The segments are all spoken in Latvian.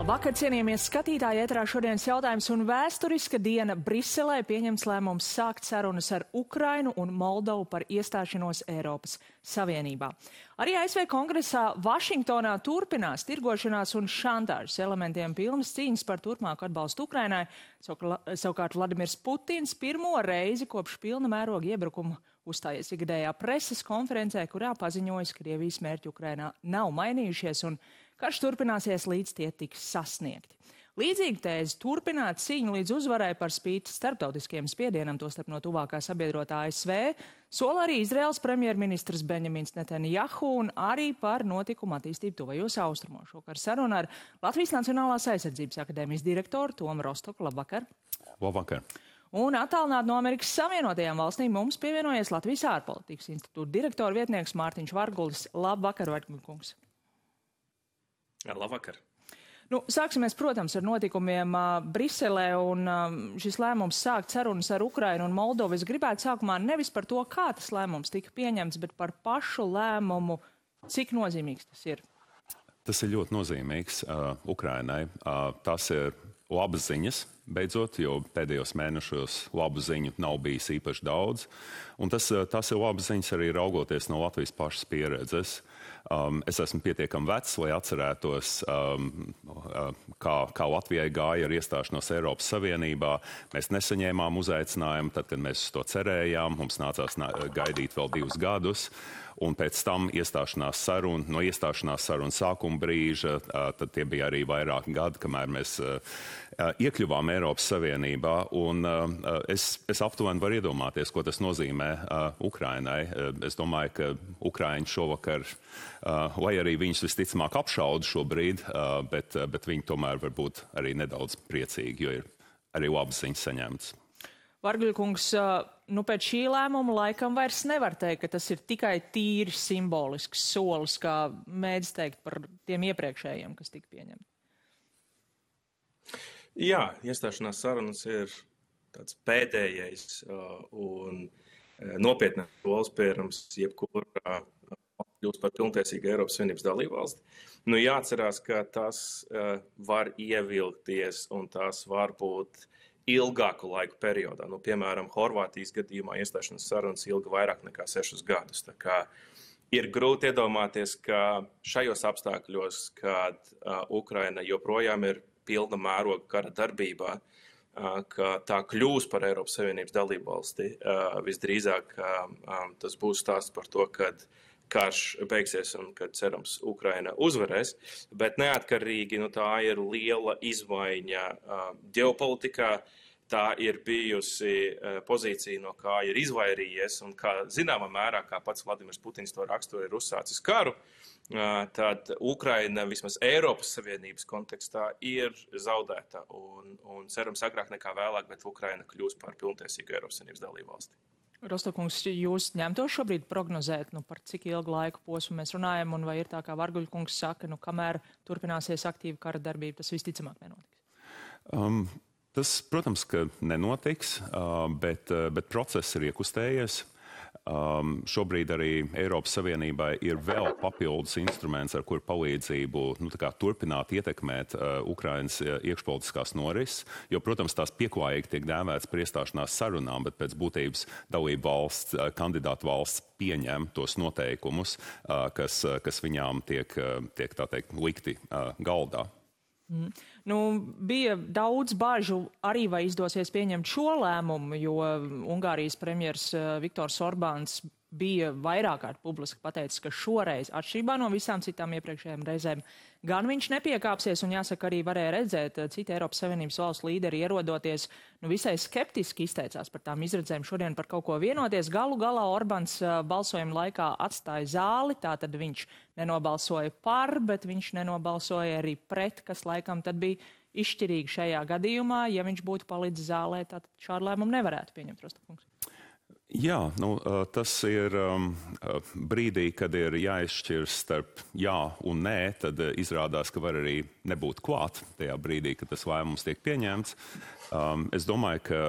Vakar, cienījamies skatītāji, ēterā šodienas jautājums un vēsturiska diena Briselē pieņems lēmums sākt sarunas ar Ukrainu un Moldovu par iestāšanos Eiropas Savienībā. Arī ASV kongresā Vašingtonā turpinās tirgošanās un šantāžas elementiem pilnas cīņas par turpmāku atbalstu Ukrainai. Savukārt Vladimirs Putins pirmo reizi kopš pilna mēroga iebrukumu uzstājies ikgadējā preses konferencē, kurā paziņojas, ka Krievijas mērķi Ukrainā nav mainījušies un karš turpināsies, līdz tie tiks sasniegti. Līdzīgi tēze turpināt cīņu līdz uzvarai par spīti starptautiskiem spiedienam, tostarp no tuvākā sabiedrotā ASV, sola arī Izraels premjerministrs Benjamins Netanjahu un arī par notikumu attīstību tuvajos austrumos. Šokar saruna ar Latvijas Nacionālās aizsardzības akadēmijas direktoru Tomu Rostoku. Labvakar! Labvakar! Un attālināt no Amerikas Savienotajām valstīm mums pievienojies Latvijas ārpolitikas institūta direktora vietnieks Mārtiņš Vargulis. Labvakar, Varguļkungs! Labvakar! Sāksimies, protams, ar notikumiem Briselē un šis lēmums sākt sarunas ar Ukrainu un Moldovu. Es gribētu sākumā nevis par to, kā tas lēmums tika pieņemts, bet par pašu lēmumu, cik nozīmīgs tas ir. Tas ir ļoti nozīmīgs Ukrainai. Tas ir labas ziņas, beidzot, jo pēdējos mēnešos labu ziņu nav bijis īpaši daudz. Un tas ir labas ziņas arī raugoties no Latvijas pašas pieredzes. Es esmu pietiekami vecs, lai atcerētos, kā Latvijai gāja ar iestāšanos Eiropas Savienībā. Mēs nesaņēmām uzaicinājumu, tad, kad mēs uz to cerējām. Mums nācās gaidīt vēl 2 gadus. Un pēc tam no iestāšanās sarunu sākuma brīža, tad tie bija arī vairāki gadi, kamēr mēs iekļuvām Eiropas Savienībā. Un es aptuveni varu iedomāties, ko tas nozīmē Ukrainai. Es domāju, ka Ukraiņi šovakar, lai arī viņus visticamāk apšauda šobrīd, bet viņi tomēr var būt arī nedaudz priecīgi, jo ir arī labas ziņas saņemtas. Varguļkungs, pēc šī lēmuma laikam vairs nevar teikt, ka tas ir tikai tīri simbolisks solis, kā mēdz teikt par tiem iepriekšējiem, kas tika pieņemti. Jā, iestāšanās sarunas ir tāds pēdējais un nopietnāks solis pirms jebkura kļūst par pilntiesīgu Eiropas Savienības dalībvalsti. Jāatcerās, ka tas var ievilkties un tas var būt ilgāku laiku periodā. Piemēram, Horvātijas gadījumā iestāšanās sarunas ilga vairāk nekā 6 gadus. Tā kā ir grūti iedomāties, ka šajos apstākļos, kad Ukraina joprojām ir pilna mēroga kara darbībā, ka tā kļūs par Eiropas Savienības dalībvalsti. Visdrīzāk tas būs stāsts par to, kad karš beigsies un, kad cerams, Ukraina uzvarēs. Bet neatkarīgi, tā ir liela izmaiņa ģeopolitikā. Tā ir bijusi pozīcija, no kā ir izvairījies un kā zināmā mērā, kā pats Vladimirs Putins to raksturo, ir uzsācis karu. Tad Ukraina vismaz Eiropas Savienības kontekstā ir zaudēta un cerams agrāk nekā vēlāk, bet Ukraina kļūs par pilntiesīgu Eiropas Savienības dalībvalsti. Rostokungs, jūs ņemtos šobrīd prognozēt, par cik ilgu laiku posmu mēs runājam, un vai ir tā, kā Varguļkungs saka, kamēr turpināsies aktīva kara darbība, tas visticamāk nenotiks? Tas, protams, ka nenotiks, bet process ir iekustējies. Šobrīd arī Eiropas Savienībai ir vēl papildus instruments, ar kur palīdzību turpināt ietekmēt Ukrainas iekšpolitiskās norises, jo, protams, tās pieklājīgi tiek dēvētas par iestāšanās sarunām, bet pēc būtības dalību valsts, kandidātu valsts pieņem tos noteikumus, kas viņām tiek tā teikt, likti galdā. Bija daudz bažu arī, vai izdosies pieņemt šo lēmumu, jo Ungārijas premjers Viktors Orbāns bija vairāk kārt publiski pateicis, ka šoreiz, atšķirībā no visām citām iepriekšējām reizēm, gan viņš nepiekāpsies, un jāsaka, arī varēja redzēt, citi Eiropas Savienības valstu līderi ierodoties, visai skeptiski izteicās par tām izredzēm šodien par kaut ko vienoties. Galu galā Orbāns balsojuma laikā atstāja zāli, tātad viņš nenobalsoja par, bet viņš nenobalsoja arī pret, kas laikam tad bija izšķirīgi šajā gadījumā. Ja viņš būtu palicis zālē, tad šādu lēmumu nevarētu pieņemt, Rostokungs. Jā, tas ir brīdī, kad ir jāizšķirs starp jā un nē, tad izrādās, ka var arī nebūt klāt tajā brīdī, kad tas lēmums tiek pieņemts. Es domāju, ka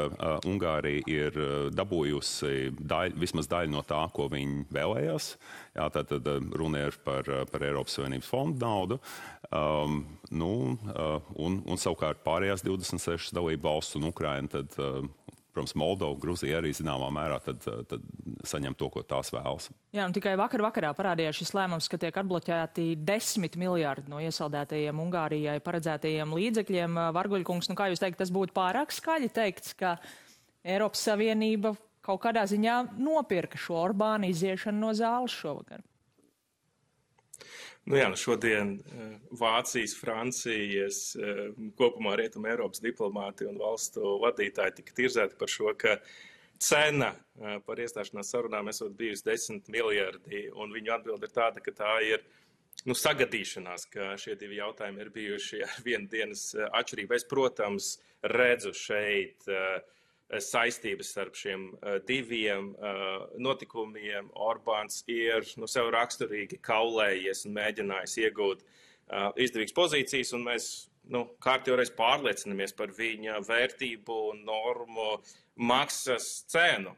Ungārija ir dabūjusi vismaz daļu no tā, ko viņi vēlējās. Jā, tad runa ir par Eiropas Savienības fondu naudu. Un savukārt pārējās 26 dalību valsts un Ukraina tad protams, Moldova, Gruzija arī zināmā mērā tad saņem to, ko tās vēlas. Jā, un tikai vakarā parādījās šis lēmums, ka tiek atbloķēti 10 miljārdi no iesaldētajiem Ungārijai paredzētajiem līdzekļiem. Varguļkungs, kā jūs teikt, tas būtu pārāk skaļi teikts, ka Eiropas Savienība kaut kādā ziņā nopirka šo Orbāna iziešanu no zāles šovakar? Šodien Vācijas, Francijas, kopumā Rietuma Eiropas diplomāti un valstu vadītāji tika tirzēti par šo, ka cena par iestāšanās sarunām esot bijusi 10 miljardi, un viņu atbilde ir tāda, ka tā ir sagadīšanās, ka šie divi jautājumi ir bijuši ar vienu dienas atšķirību. Es, protams, redzu šeit saistības starp šiem diviem notikumiem. Orbāns ir sev raksturīgi kaulējies un mēģinājis iegūt izdevīgas pozīcijas, un mēs kārtjoreiz pārliecinamies par viņa vērtību un normu maksas cenu,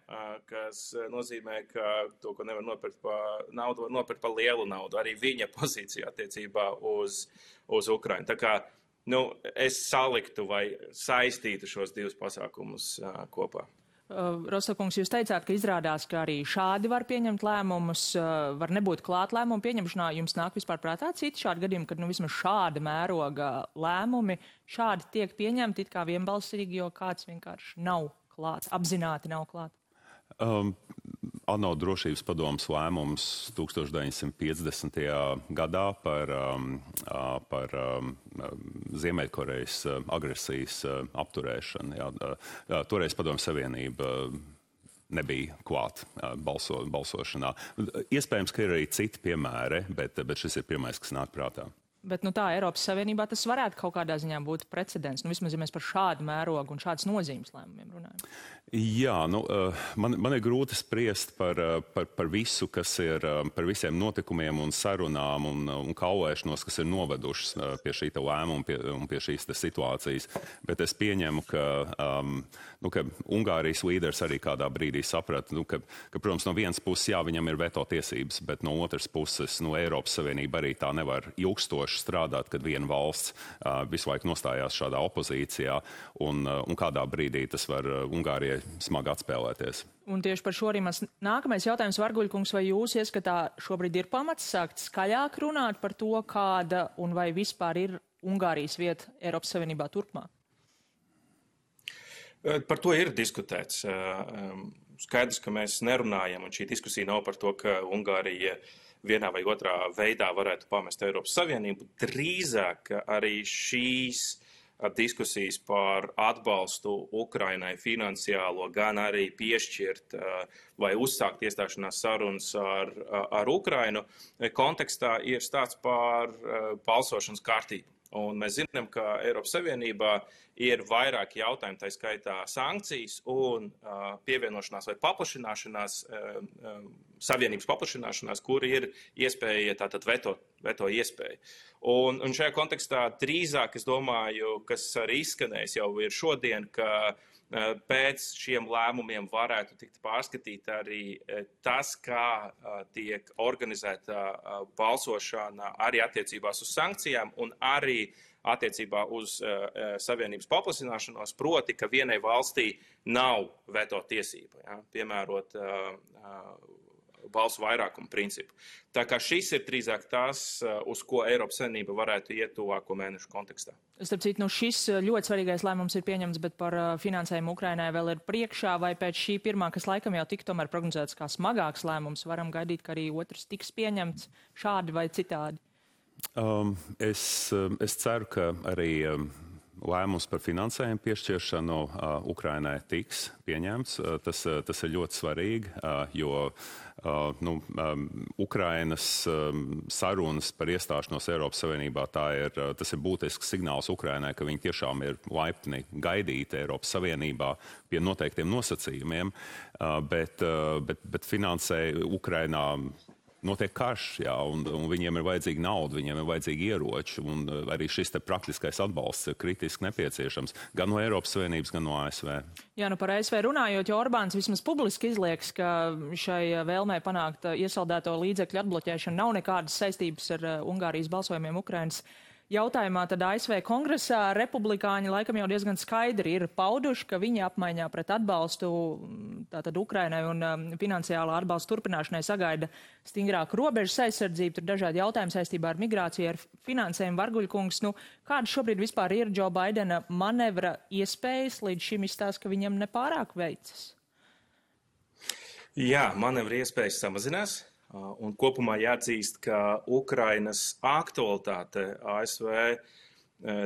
kas nozīmē, ka to, ko nevar nopirkt par naudu, var nopirkt par lielu naudu. Arī viņa pozīcija attiecībā uz Ukrainu. Tā kā es saliktu vai saistītu šos divus pasākumus kopā. Rostokungs, jūs teicāt, ka izrādās, ka arī šādi var pieņemt lēmumus, var nebūt klāt lēmumu pieņemšanā. Jums nāk vispār prātā citi šādi gadījumi, kad vismaz šāda mēroga lēmumi šādi tiek pieņemti it kā vienbalsīgi, jo kāds vienkārši nav klāts, apzināti nav klāt? ANO drošības padomes lēmums 1950. gadā par Ziemeļkorejas agresijas apturēšanu. Jā, toreiz Padomju Savienība nebija klāt balsošanā. Iespējams, ka ir arī citi piemēri, bet šis ir pirmais, kas nāk prātā. Bet tā Eiropas Savienībā tas varētu kaut kādā ziņā būt precedents. Vismaz, ja mēs par šādu mērogu un šādas nozīmes lēmumiem runājam. Jā, man ir grūti spriest par visu, kas ir, par visiem notikumiem un sarunām un kaulēšanos, kas ir novedušas pie šī lēmuma un pie šīs situācijas. Bet es pieņemu, ka Ungārijas līderis arī kādā brīdī saprata, ka, protams, no vienas puses, jā, viņam ir veto tiesības, bet no otras puses, Eiropas Savienība arī tā nevar ilgstoši strādāt, kad viena valsts visu laiku nostājās šādā opozīcijā, un kādā brīdī tas var Ungārijai smagi atspēlēties. Un tieši par šo arī mans nākamais jautājums, Varguļkungs, vai jūs ieskatā šobrīd ir pamats sākt skaļāk runāt par to, kāda un vai vispār ir Ungārijas vieta Eiropas Savienībā turpmāk? Par to ir diskutēts. Skaidrs, ka mēs nerunājam, un šī diskusija nav par to, ka Ungārija vienā vai otrā veidā varētu pamest Eiropas Savienību. Drīzāk arī šīs diskusijas par atbalstu Ukrainai finansiālo, gan arī piešķirt vai uzsākt iestāšanās sarunas ar Ukrainu kontekstā ir stāsts par balsošanas kārtību. Un mēs zinām, ka Eiropas Savienībā ir vairāki jautājumi, tā skaitā sankcijas un pievienošanās vai paplašināšanās, savienības paplašināšanās, kur ir iespēja tātad veto iespēja. Un šajā kontekstā drīzāk, es domāju, kas arī izskanējis jau ir šodien, ka pēc šiem lēmumiem varētu tikt pārskatīt arī tas, kā tiek organizēta balsošana arī attiecībās uz sankcijām un arī attiecībā uz savienības paplašināšanos, proti, ka vienai valstī nav veto tiesība, ja, piemērot balsu vairākumu principu. Tā kā šis ir drīzāk tas, uz ko Eiropas Savienība varētu iet tuvāko mēnešu kontekstā. Starp citu, šis ļoti svarīgais lēmums ir pieņemts, bet par finansējumu Ukrainai vēl ir priekšā, vai pēc šī pirmā, kas laikam jau tika tomēr prognozēts kā smagāks lēmums, varam gaidīt, ka arī otrs tiks pieņemts šādi vai citādi? Es ceru, ka arī lēmums par finansējumu piešķiršanu Ukrainai tiks pieņemts. Tas ir ļoti svarīgi, jo Ukrainas sarunas par iestāšanos Eiropas Savienībā tas ir būtisks signāls Ukrainai, ka viņi tiešām ir laipni gaidīti Eiropas Savienībā pie noteiktiem nosacījumiem, bet finansē Ukrainā notiek karš, jā, un viņiem ir vajadzīga nauda, viņiem ir vajadzīgi ieroči, un arī šis te praktiskais atbalsts ir kritiski nepieciešams gan no Eiropas Savienības, gan no ASV. Jā, par ASV runājot, jo Orbāns vismaz publiski izlieks, ka šai vēlmē panākt iesaldēto līdzekļu atbloķēšanu nav nekādas saistības ar Ungārijas balsojumiem Ukrainas jautājumā, tad ASV kongresā republikāņi laikam jau diezgan skaidri ir pauduši, ka viņi apmaiņā pret atbalstu tātad Ukrainai un finansiālā atbalsta turpināšanai sagaida stingrāku robežas aizsardzību, tur dažādi jautājumi saistībā ar migrāciju, ar finansējumu. Varguļkungs, kāda šobrīd vispār ir Džo Baidena manevra iespējas, līdz šim izstāsta, ka viņam nepārāk veicas? Jā, manevra iespējas samazinās. Un kopumā jāatzīst, ka Ukrainas aktualitāte ASV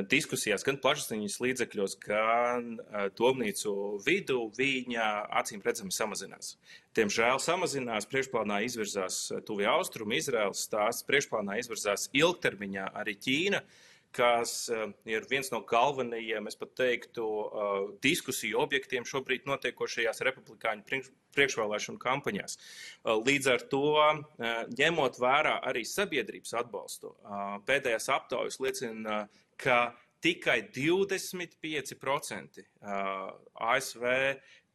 diskusijās, gan plašsaziņas līdzekļos, gan domnīcu vidū, viņa acīm redzami samazinās. Diemžēl samazinās, priekšplānā izvirzās Tuvie Austrumi, Izraels stāsts, priekšplānā izvirzās ilgtermiņā arī Ķīna, kas ir viens no galvenajiem, es pat teiktu, diskusiju objektiem šobrīd notiekošajās republikāņu priekšvēlēšanu kampaņās. Līdz ar to, ņemot vērā arī sabiedrības atbalstu, pēdējās aptaujas liecina, ka tikai 25% ASV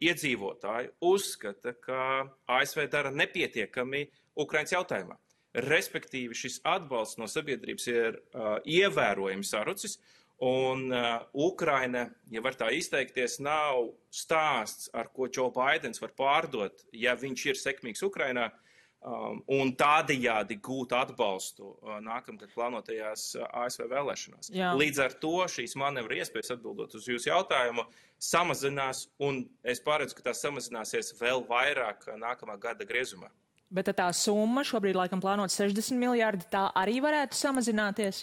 iedzīvotāji uzskata, ka ASV dara nepietiekami Ukrainas jautājumā. Respektīvi, šis atbalsts no sabiedrības ir ievērojami sarucis, un Ukraina, ja var tā izteikties, nav stāsts, ar ko Džo Baidens var pārdot, ja viņš ir sekmīgs Ukrainā, un tādējādi gūt atbalstu nākamgad plānotajās ASV vēlēšanās. Jā. Līdz ar to šīs manevra iespējas, atbildot uz jūsu jautājumu, samazinās, un es paredzu, ka tās samazināsies vēl vairāk nākamā gada griezumā. Bet tā summa šobrīd laikam plānot 60 miljārdi, tā arī varētu samazināties?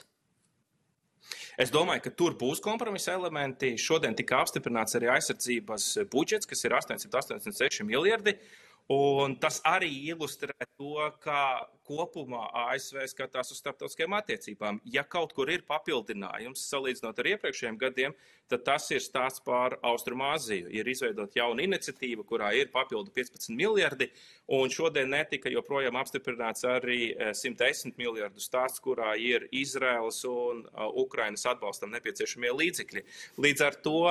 Es domāju, ka tur būs kompromisa elementi. Šodien tika apstiprināts arī aizsardzības budžets, kas ir 886 miljardi. Un tas arī ilustrē to, kā kopumā ASV skatās uz starptautiskajām attiecībām. Ja kaut kur ir papildinājums, salīdzinot ar iepriekšējiem gadiem, tad tas ir stāsts par Austrumāziju. Ir izveidot jauna iniciatīva, kurā ir papildu 15 miljardi, un šodien netika joprojām apstiprināts arī 110 miljardu stāsts, kurā ir Izraēlas un Ukrainas atbalstam nepieciešamie līdzekļi. Līdz ar to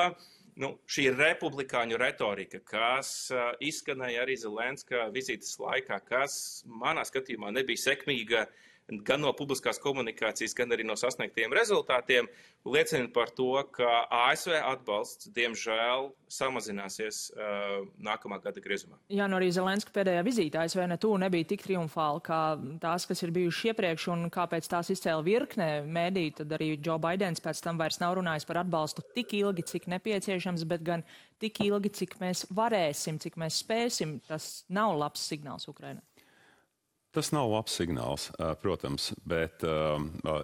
šī republikāņu retorika, kas izskanēja arī Zelenska vizītes laikā, kas manā skatījumā nebija sekmīga gan no publiskās komunikācijas, gan arī no sasniegtiem rezultātiem, liecina par to, ka ASV atbalsts, diemžēl, samazināsies nākamā gada griezumā. Jā, arī Zelenska pēdējā vizīte ASV nebija tik triumfāla kā tās, kas ir bijušas iepriekš, un kāpēc tās izcēla virknē mēdī, tad arī Džo Baidens pēc tam vairs nav runājis par atbalstu tik ilgi, cik nepieciešams, bet gan tik ilgi, cik mēs varēsim, cik mēs spēsim. Tas nav labs signāls Ukrainai. Tas nav labs signāls, protams, bet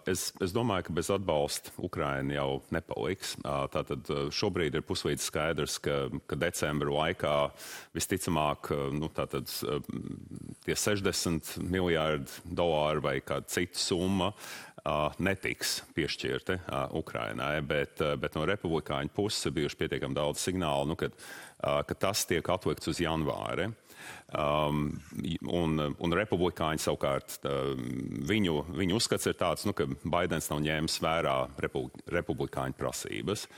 es domāju, ka bez atbalsta Ukraina jau nepaliks. Tātad šobrīd ir puslīdz skaidrs, ka decembra laikā visticamāk tie 60 miljārdi dolāru vai kāda cita summa netiks piešķirti Ukrainai, bet no republikāņu puses ir bijuši pietiekami daudz signālu, ka tas tiek atlikts uz janvāri. Un republikāņi savukārt, viņu uzskats ir tāds, ka Baidens nav ņēmis vērā republikāņu prasības.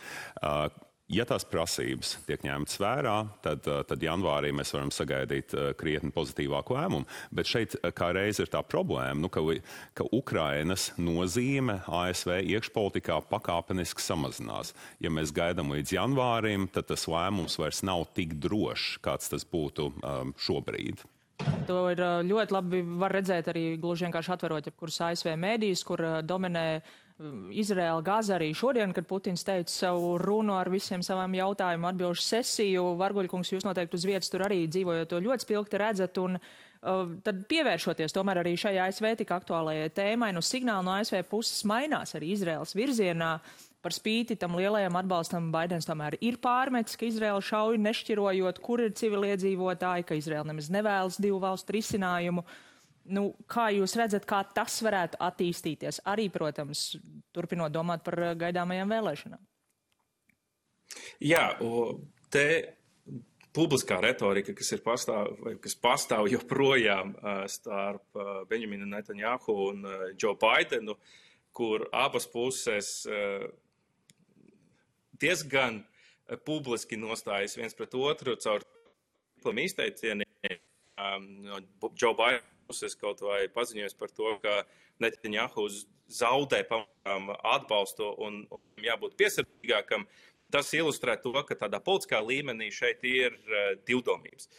Ja tās prasības tiek ņemtas vērā, tad janvārī mēs varam sagaidīt krietni pozitīvāku lēmumu. Bet šeit kā reiz ir tā problēma, ka Ukrainas nozīme ASV iekšpolitikā pakāpeniski samazinās. Ja mēs gaidām līdz janvārim, tad tas lēmums vairs nav tik drošs, kāds tas būtu šobrīd. To ir ļoti labi var redzēt arī gluži vienkārši atverot jebkurus ASV mēdījus, kur dominē Izraēla, Gaza arī šodien, kad Putins teica savu runu ar visiem savām jautājumu atbilžu sesiju. Varguļkungs, jūs noteikti uz vietas tur arī dzīvojot to ļoti spilgti redzat, un tad pievēršoties tomēr arī šai ASV tik aktuālajai tēmai, signāli no ASV puses mainās arī Izraēlas virzienā. par spīti tam lielajam atbalstam Baidens tomēr ir pārmetis, ka Izraela šauj nešķirojot, kur ir civiliedzīvotāji, ka Izraela nemaz nevēlas divu valstu risinājumu. Nu, kā jūs redzat, kā tas varētu attīstīties? Arī, protams, turpinot domāt par gaidāmajām vēlēšanām. Jā, te publiskā retorika, kas pastāv joprojām starp Benjaminu Netanjahu un Joe Bidenu, kur abas puses diezgan publiski nostājas viens pret otru caur izteicieniem. Joe Biden puses kaut vai paziņojas par to, ka Netanjahu zaudē atbalstu un jābūt piesardzīgākam. Tas ilustrē to, ka tādā politiskā līmenī šeit ir divdomības.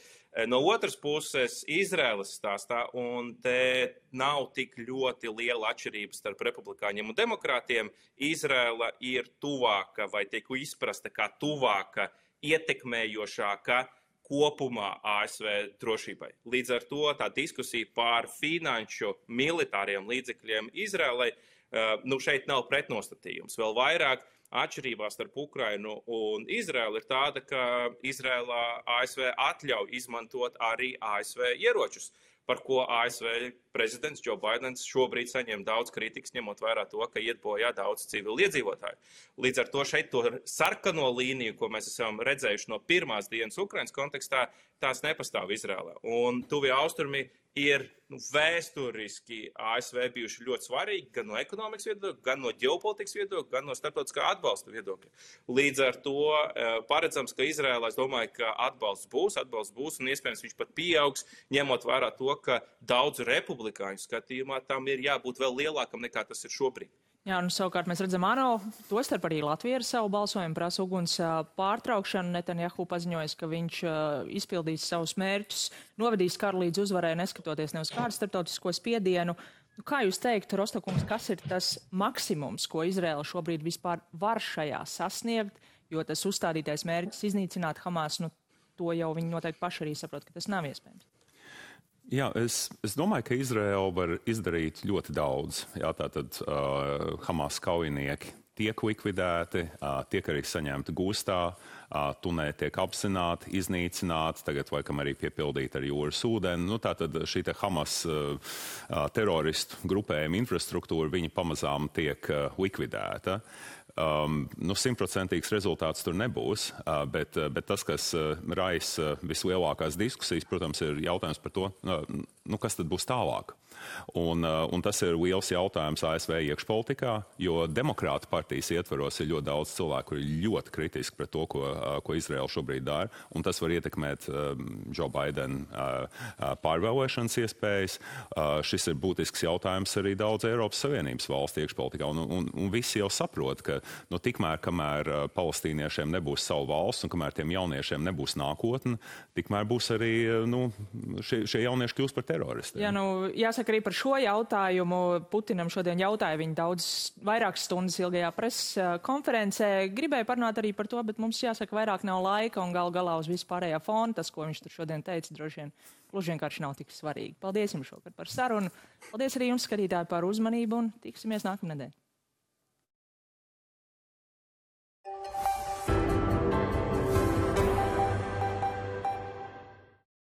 No otras puses, Izraēlas stāstā, un te nav tik ļoti liela atšķirība starp republikāņiem un demokrātiem, Izraēla ir tuvāka vai tiek izprasta kā tuvāka, ietekmējošāka kopumā ASV drošībai. Līdz ar to tā diskusija par finanšu militāriem līdzekļiem Izraēlai, šeit nav pretnostatījums. Vēl vairāk atšķirībā starp Ukrainu un Izraēlu ir tāda, ka Izraēlā ASV atļauj izmantot arī ASV ieročus, par ko ASV prezidents Joe Bidens šobrīd saņem daudz kritikas, ņemot vērā to, ka iet bojā daudz civili iedzīvotāju. Līdz ar to šeit to sarkano līniju, ko mēs esam redzējuši no pirmās dienas Ukrainas kontekstā, tās nepastāv Izraēlā. Un tuvie austrumi ir vēsturiski ASV bijuši ļoti svarīgi gan no ekonomikas viedokļa, gan no ģeopolitikas viedokļa, gan no starptautiskā atbalsta viedokļa. Līdz ar to paredzams, ka Izraēlā, es domāju, ka atbalsts būs, un iespējams viņš pat pieaugs, ņemot vērā to, ka daudzu republikāņu skatījumā tam ir jābūt vēl lielākam nekā tas ir šobrīd. Jā, un savukārt mēs redzam, ANO, tostarp arī Latvija ar savu balsojumu prasa uguns pārtraukšanu. Netanjahu paziņojas, ka viņš izpildīs savus mērķus, novedīs karu līdz uzvarai, neskatoties ne uz kādu starptautisko spiedienu. Kā jūs teiktu, Rostokungs, kas ir tas maksimums, ko Izraela šobrīd vispār var šajā sasniegt, jo tas uzstādītais mērķis iznīcināt Hamas, to jau viņi noteikti paši arī saprot, ka tas nav iespējams. Jā, es domāju, ka Izraela var izdarīt ļoti daudz. Jā, tātad Hamas kaujinieki tiek likvidēti, tiek arī saņemti gūstā, tunēļi tiek apzināti, iznīcināti, tagad laikam arī piepildīti ar jūras ūdeni. Tātad šī Hamas teroristu grupējuma infrastruktūra, viņa pamazām tiek likvidēta. 100% rezultāts tur nebūs, bet tas, kas raisa vislielākās diskusijas, protams, ir jautājums par to, kas tad būs tālāk. Un tas ir liels jautājums ASV iekšpolitikā, jo demokrāta partijas ietvaros ir ļoti daudz cilvēku, kuri ir ļoti kritiski pret to, ko Izraela šobrīd dara, un tas var ietekmēt Joe Biden pārvēlēšanas iespējas. Šis ir būtisks jautājums arī daudz Eiropas Savienības valstu iekšpolitikā, un visi jau saprot, ka tikmēr, kamēr palestīniešiem nebūs savu valsts un kamēr tiem jauniešiem nebūs nākotne, tikmēr būs arī šie jaunieši kļūst par teroristiem. Jā, jāsaka arī par šo jautājumu. Putinam šodien jautāja viņa vairākas stundas ilgajā preses konferencē. Gribēju parunāt arī par to, bet mums jāsaka vairāk nav laika un galā uz vispārējā fona. Tas, ko viņš tur šodien teica, droši vien gluži vienkārši nav tik svarīgi. Paldies jums šokar par sarunu. Paldies arī jums, skatītāji, par uzmanību un tiksimies nākamnedēļ.